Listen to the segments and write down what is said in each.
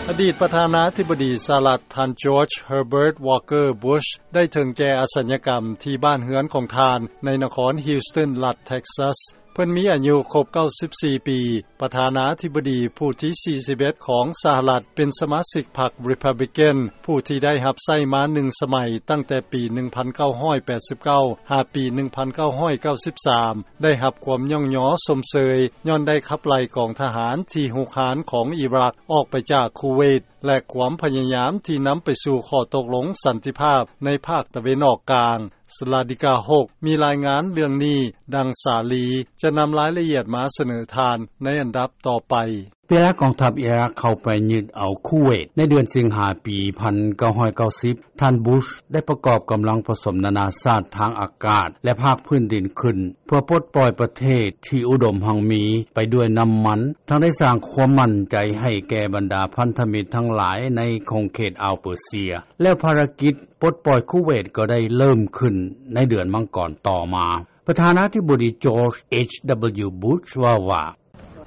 ອະດີດປະທານາທິບໍດີສະຫະລັດ ທ່ານ George Herbert Walker Bush ໄດ້ເຖິງແກ່ອະສັນຍະກຳທີ່ບ້ານເຮືອນຂອງທ່ານ ໃນນະຄອນ Houston ລັດ Texas. ເພິ່ນມີອາຍຸຄົບ 94 ປີ, ປະທານາທິບໍດີຜູ້ທີ 41 ຂອງສະຫະລັດ, ເປັນສະມາຊິກພັກ Republican ຜູ້ທີ່ໄດ້ຮັບໃຊ້ມາໜຶ່ງສະໄໝ ຕັ້ງແຕ່ປີ 1989 ຫາປີ 1993, ໄດ້ຮັບຄວາມຍ້ອງຍໍຊົມເຊີຍ ຍ້ອນໄດ້ຂັບໄລ່ກອງທະຫານທີ່ຮຸກຮານຂອງອີຣັກອອກໄປຈາກຄູເວດ ແລະ ຄວາມພະຍາຍາມທີ່ນຳໄປສູ່ຂໍ້ຕົກລົງສັນຕິພາບໃນພາກຕາເວັນອອກກາງ. ສະລາດິກາ ຫົກ ມີລາຍງານເລື່ອງນີ້, ດັ່ງສາລີຈະນຳລາຍລະອຽດມາສະເໜີທ່ານໃນອັນດັບຕໍ່ໄປ. ເວລາກອງທັບອີຣັກເຂົ້າໄປຍຶດເອົາຄູເວດໃນເດືອນສິງຫາປີ 1990, ທ່ານ Bush ໄດ້ປະກອບກຳລັງປະສົມນານາຊາດທາງອາກາດ ແລະ ພາກພື້ນດິນຂຶ້ນ ເພື່ອປົດປ່ອຍປະເທດທີ່ອຸດົມຮັ່ງມີໄປດ້ວຍນ້ຳມັນ, ທັງໄດ້ສ້າງຄວາມໝັ້ນໃຈໃຫ້ແກ່ບັນດາພັນທະມິດທັງຫຼາຍໃນຂົງເຂດອ່າວເປີເຊຍ. ແລ້ວພາລະກິດປົດປ່ອຍຄູເວດກໍໄດ້ເລີ່ມຂຶ້ນໃນເດືອນມັງກອນຕໍ່ມາ. ປະທານາທິບໍດີ George H.W. Bush ເວົ້າວ່າ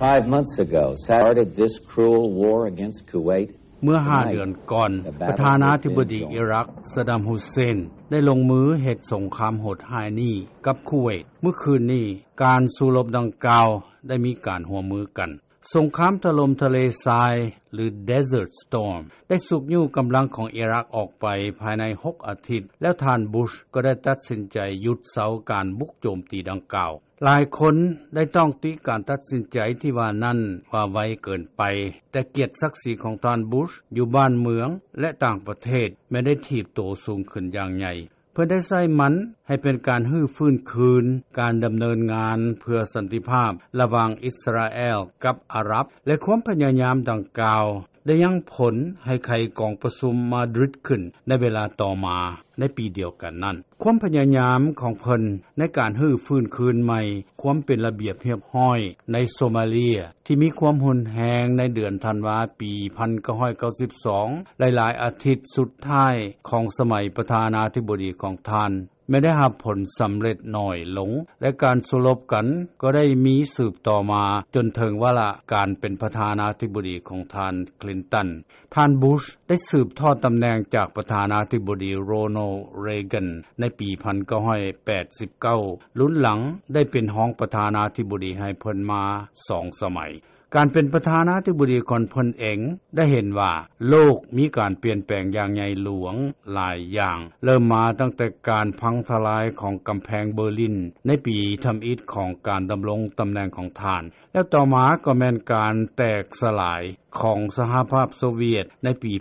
Five months ago, started this cruel war against Kuwait. ເມື່ອຫ້າເດືອນກ່ອນ, ປະທານາທິບໍດີອີຣັກ ຊະດຳ ຮຸດເຊນ ໄດ້ລົງມືເຮັດສົງຄາມໂຫດຮ້າຍນີ້ກັບຄູເວດ. ມື້ຄືນນີ້, ການສູ້ລົບດັ່ງກ່າວໄດ້ມີການຮ່ວມມືກັນ. ສົງຄາມຖະຫຼົ່ມທະເລຊາຍ ຫຼື Desert Storm ໄດ້ຊຸກຍູ້ກຳລັງຂອງອີຣັກອອກໄປພາຍໃນຫົກອາທິດ, ແລ້ວທ່ານ Bush ກໍໄດ້ຕັດສິນໃຈຢຸດເຊົາການບຸກໂຈມຕີດັ່ງກ່າວ. ຫຼາຍຄົນໄດ້ຕ້ອງຕິການຕັດສິນໃຈທີ່ວ່ານັ້ນວ່າໄວເກີນໄປ, ແຕ່ກຽດສັກສີຂອງທ່ານ Bush ຢູ່ບ້ານເມືອງ ແລະ ຕ່າງປະເທດ ແມ່ນໄດ້ຖີບໂຕສູງຂຶ້ນຢ່າງໃຫຍ່. ເພິ່ນໄດ້ໃຊ້ມັນໃຫ້ເປັນການຮື້ຟື້ນຄືນການດຳເນີນງານເພື່ອສັນຕິພາບລະຫວ່າງອິດສະຣາແອລກັບອາຣັບ, ແລະ ຄວາມພະຍາຍາມດັ່ງກ່າວ ໄດ້ຍັງຜົນໃຫ້ໄຂກອງປະຊຸມມາດຣິດຂຶ້ນໃນເວລາຕໍ່ມາໃນປີດຽວກັນນັ້ນ. ຄວາມພະຍາຍາມຂອງເພິ່ນໃນການຮື້ຟື້ນຄືນໃໝ່ຄວາມເປັນລະບຽບຮຽບຮ້ອຍໃນໂຊມາເລຍ ທີ່ມີຄວາມຮຸນແຮງໃນເດືອນທັນວາປີ 1992, ຫຼາຍໆອາທິດສຸດທ້າຍຂອງສະໄໝປະທານາທິບໍດີຂອງທ່ານ ແມ່ນໄດ້ຮັບຜົນສຳເລັດໜ້ອຍລົງ ແລະ ການສູ້ລົບກັນກໍໄດ້ມີສືບຕໍ່ມາຈົນເຖິງວາລະການເປັນປະທານາທິບໍດີຂອງທ່ານ Clinton. ທ່ານ Bush ໄດ້ສືບທອດຕຳແໜ່ງຈາກປະທານາທິບໍດີ Ronald Reagan ໃນປີ 1989, ລຸນຫຼັງໄດ້ເປັນຮອງປະທານາທິບໍດີໃຫ້ເພິ່ນມາສອງສະໄໝ. ການເປັນປະທານາທິບໍດີຂອງເພິ່ນເອງໄດ້ເຫັນວ່າໂລກມີການປ່ຽນແປງຢ່າງໃຫຍ່ຫຼວງຫຼາຍຢ່າງ, ເລີ່ມມາຕັ້ງແຕ່ການພັງທະລາຍຂອງກຳແພງເບີລິນໃນປີທຳອິດຂອງການດຳລົງຕຳແໜ່ງຂອງທ່ານ, ແລ້ວຕໍ່ມາກໍແມ່ນການແຕກສະຫຼາຍຂອງສະຫະພາບໂຊວຽດໃນປີ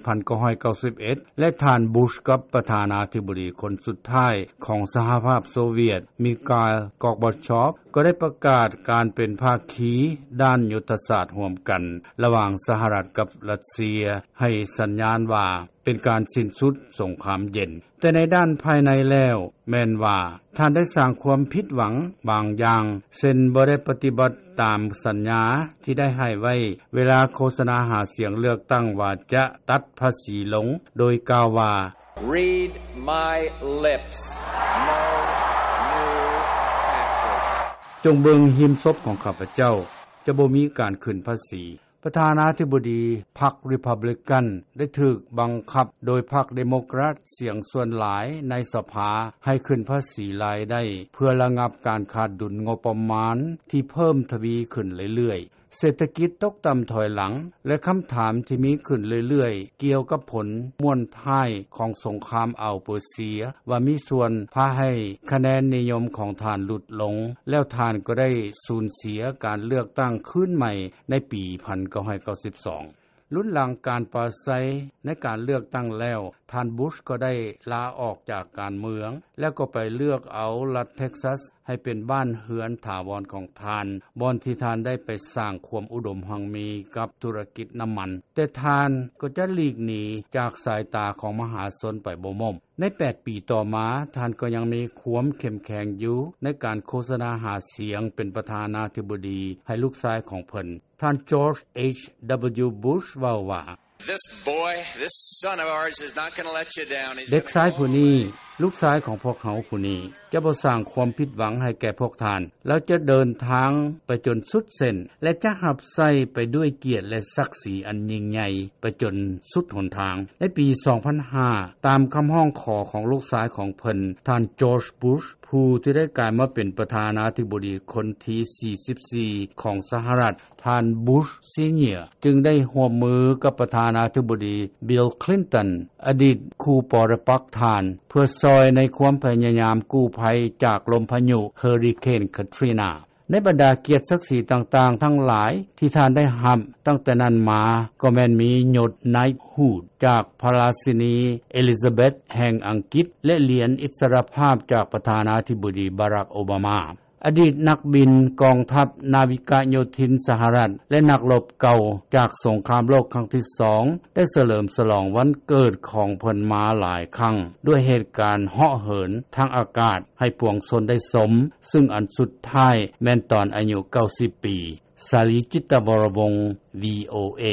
1991 ແລະ ທ່ານ Bush ກັບປະທານາທິບໍດີຄົນສຸດທ້າຍຂອງສະຫະພາບໂຊວຽດ Mikhail Gorbachev ກໍໄດ້ປະກາດການເປັນພາຄີດ້ານຍຸດທະສາດຮ່ວມກັນລະຫວ່າງສະຫະລັດກັບຣັດເຊຍ ໃຫ້ສັນຍານວ່າເປັນການສິ້ນສຸດສົງຄາມເຢັນ. ແຕ່ໃນດ້ານພາຍໃນແລ້ວ ແມ່ນວ່າທ່ານໄດ້ສ້າງຄວາມຜິດຫວັງບາງຢ່າງ, ເຊັ່ນ ບໍ່ໄດ້ປະຕິບັດຕາມສັນຍາທີ່ໄດ້ໃຫ້ໄວ້ເວລາໂຄສະນາຫາສຽງເລືອກຕັ້ງວ່າຈະຕັດພາສີລົງ, ໂດຍກ່າວວ່າ Read my lips. No new taxes. ຈົ່ງເບິ່ງຮີມສົບຂອງຂ້າພະເຈົ້າ, ຈະບໍ່ມີການຂຶ້ນພາສີ. ປະທານາທິບໍດີພັກ Republican ໄດ້ຖືກບັງຄັບໂດຍພັກ Democrat ສຽງສ່ວນຫຼາຍໃນສະພາໃຫ້ຂຶ້ນພາສີລາຍໄດ້ ເພື່ອລະງັບການຂາດດຸນງົບປະມານທີ່ເພີ່ມທະວີຂຶ້ນເລື້ອຍໆ. ເສດຖະກິດຕົກຕ່ຳຖອຍຫຼັງ ແລະ ຄຳຖາມທີ່ມີຂຶ້ນເລື້ອຍໆກ່ຽວກັບຜົນມ້ວນທ້າຍຂອງສົງຄາມອ່າວເປີເຊຍ ວ່າມີສ່ວນພາໃຫ້ຄະແນນນິຍົມຂອງທ່ານຫຼຸດລົງ, ແລ້ວທ່ານກໍໄດ້ສູນເສຍການເລືອກຕັ້ງຄືນໃໝ່ໃນປີ 1992. ລຸນຫຼັງການປາໄສໃນການເລືອກຕັ້ງແລ້ວ, ທ່ານ Bush ກໍໄດ້ລາອອກຈາກການເມືອງ ແລ້ວກໍໄປເລືອກເອົາລັດ Texas ໃຫ້ເປັນບ້ານເຮືອນຖາວອນຂອງທ່ານ, ບ່ອນທີ່ທ່ານໄດ້ໄປສ້າງຄວາມອຸດົມຮັ່ງມີກັບທຸລະກິດນ້ຳມັນ. ແຕ່ທ່ານກໍຈະຫຼີກໜີຈາກສາຍຕາຂອງມະຫາຊົນໄປບໍ່ໝົມ. ໃນແປດປີຕໍ່ມາ, ທ່ານກໍຍັງມີຄວາມເຂັ້ມແຂງຢູ່ໃນການໂຄສະນາຫາສຽງເປັນປະທານາທິບໍດີໃຫ້ລູກຊາຍຂອງເພິ່ນ. ທ່ານ George H.W. Bush ເວົ້າວ່າ This boy, this son of ours is not gonna let you down. He's gonna go all the way. ເດັກຊາຍຜູ້ນີ້, ລູກຊາຍຂອງພວກເຮົາຜູ້ນີ້, ຈະບໍ່ສ້າງຄວາມຜິດຫວັງໃຫ້ແກ່ພວກທ່ານ. ລາວຈະເດີນທາງໄປຈົນສຸດເສັ້ນ ແລະ ຈະຮັບໃຊ້ໄປດ້ວຍກຽດ ແລະ ສັກສີອັນຍິ່ງໃຫຍ່ໄປຈົນສຸດຫົນທາງ. ໃນປີ ສອງພັນຫ້າ ຕາມຄຳຮ້ອງຂໍຂອງລູກຊາຍຂອງເພິ່ນ ທ່ານ George Bush ຜູ້ທີ່ໄດ້ກາຍມາເປັນປະທານາທິບໍດີຄົນທີ ສີ່ສິບສີ່ ຂອງສະຫະລັດ, ທ່ານ Bush Senior ຈຶ່ງໄດ້ຮ່ວມມືກັບປະທານາທິບໍດີ Bill Clinton ອະດີດຄູ່ປໍລະປັກທ່ານ ເພື່ອຊ່ອຍໃນຄວາມພະຍາຍາມກູ້ໄພຈາກລົມພາຍຸເຮີຣິເຄນ Katrina. ໃນບັນດາກຽດສັກສີຕ່າງໆທັງຫຼາຍທີ່ທ່ານໄດ້ຮັບຕັ້ງແຕ່ນັ້ນມາ ກໍແມ່ນມີຍົດ Knighthood ຈາກພະລາຊິນີ Elizabeth ແຫ່ງອັງກິດ ແລະ ຫຼຽນອິດສະລະພາບຈາກປະທານາທິບໍດີ Barack Obama. ອະດີດນັກບິນກອງທັບນາວິກະໂຍທິນສະຫະລັດ ແລະ ນັກລົບເກົ່າຈາກສົງຄາມໂລກຄັ້ງທີສອງ ໄດ້ສະເຫຼີມສະຫຼອງວັນເກີດຂອງເພິ່ນມາຫຼາຍຄັ້ງ ດ້ວຍເຫດການເຫາະເຫີນທາງອາກາດໃຫ້ປວງຊົນໄດ້ຊົມ, ຊຶ່ງອັນສຸດທ້າຍແມ່ນຕອນອາຍຸ ເກົ້າສິບ ປີ. ສາລີ ຈິດຕະວໍລະວົງ VOA.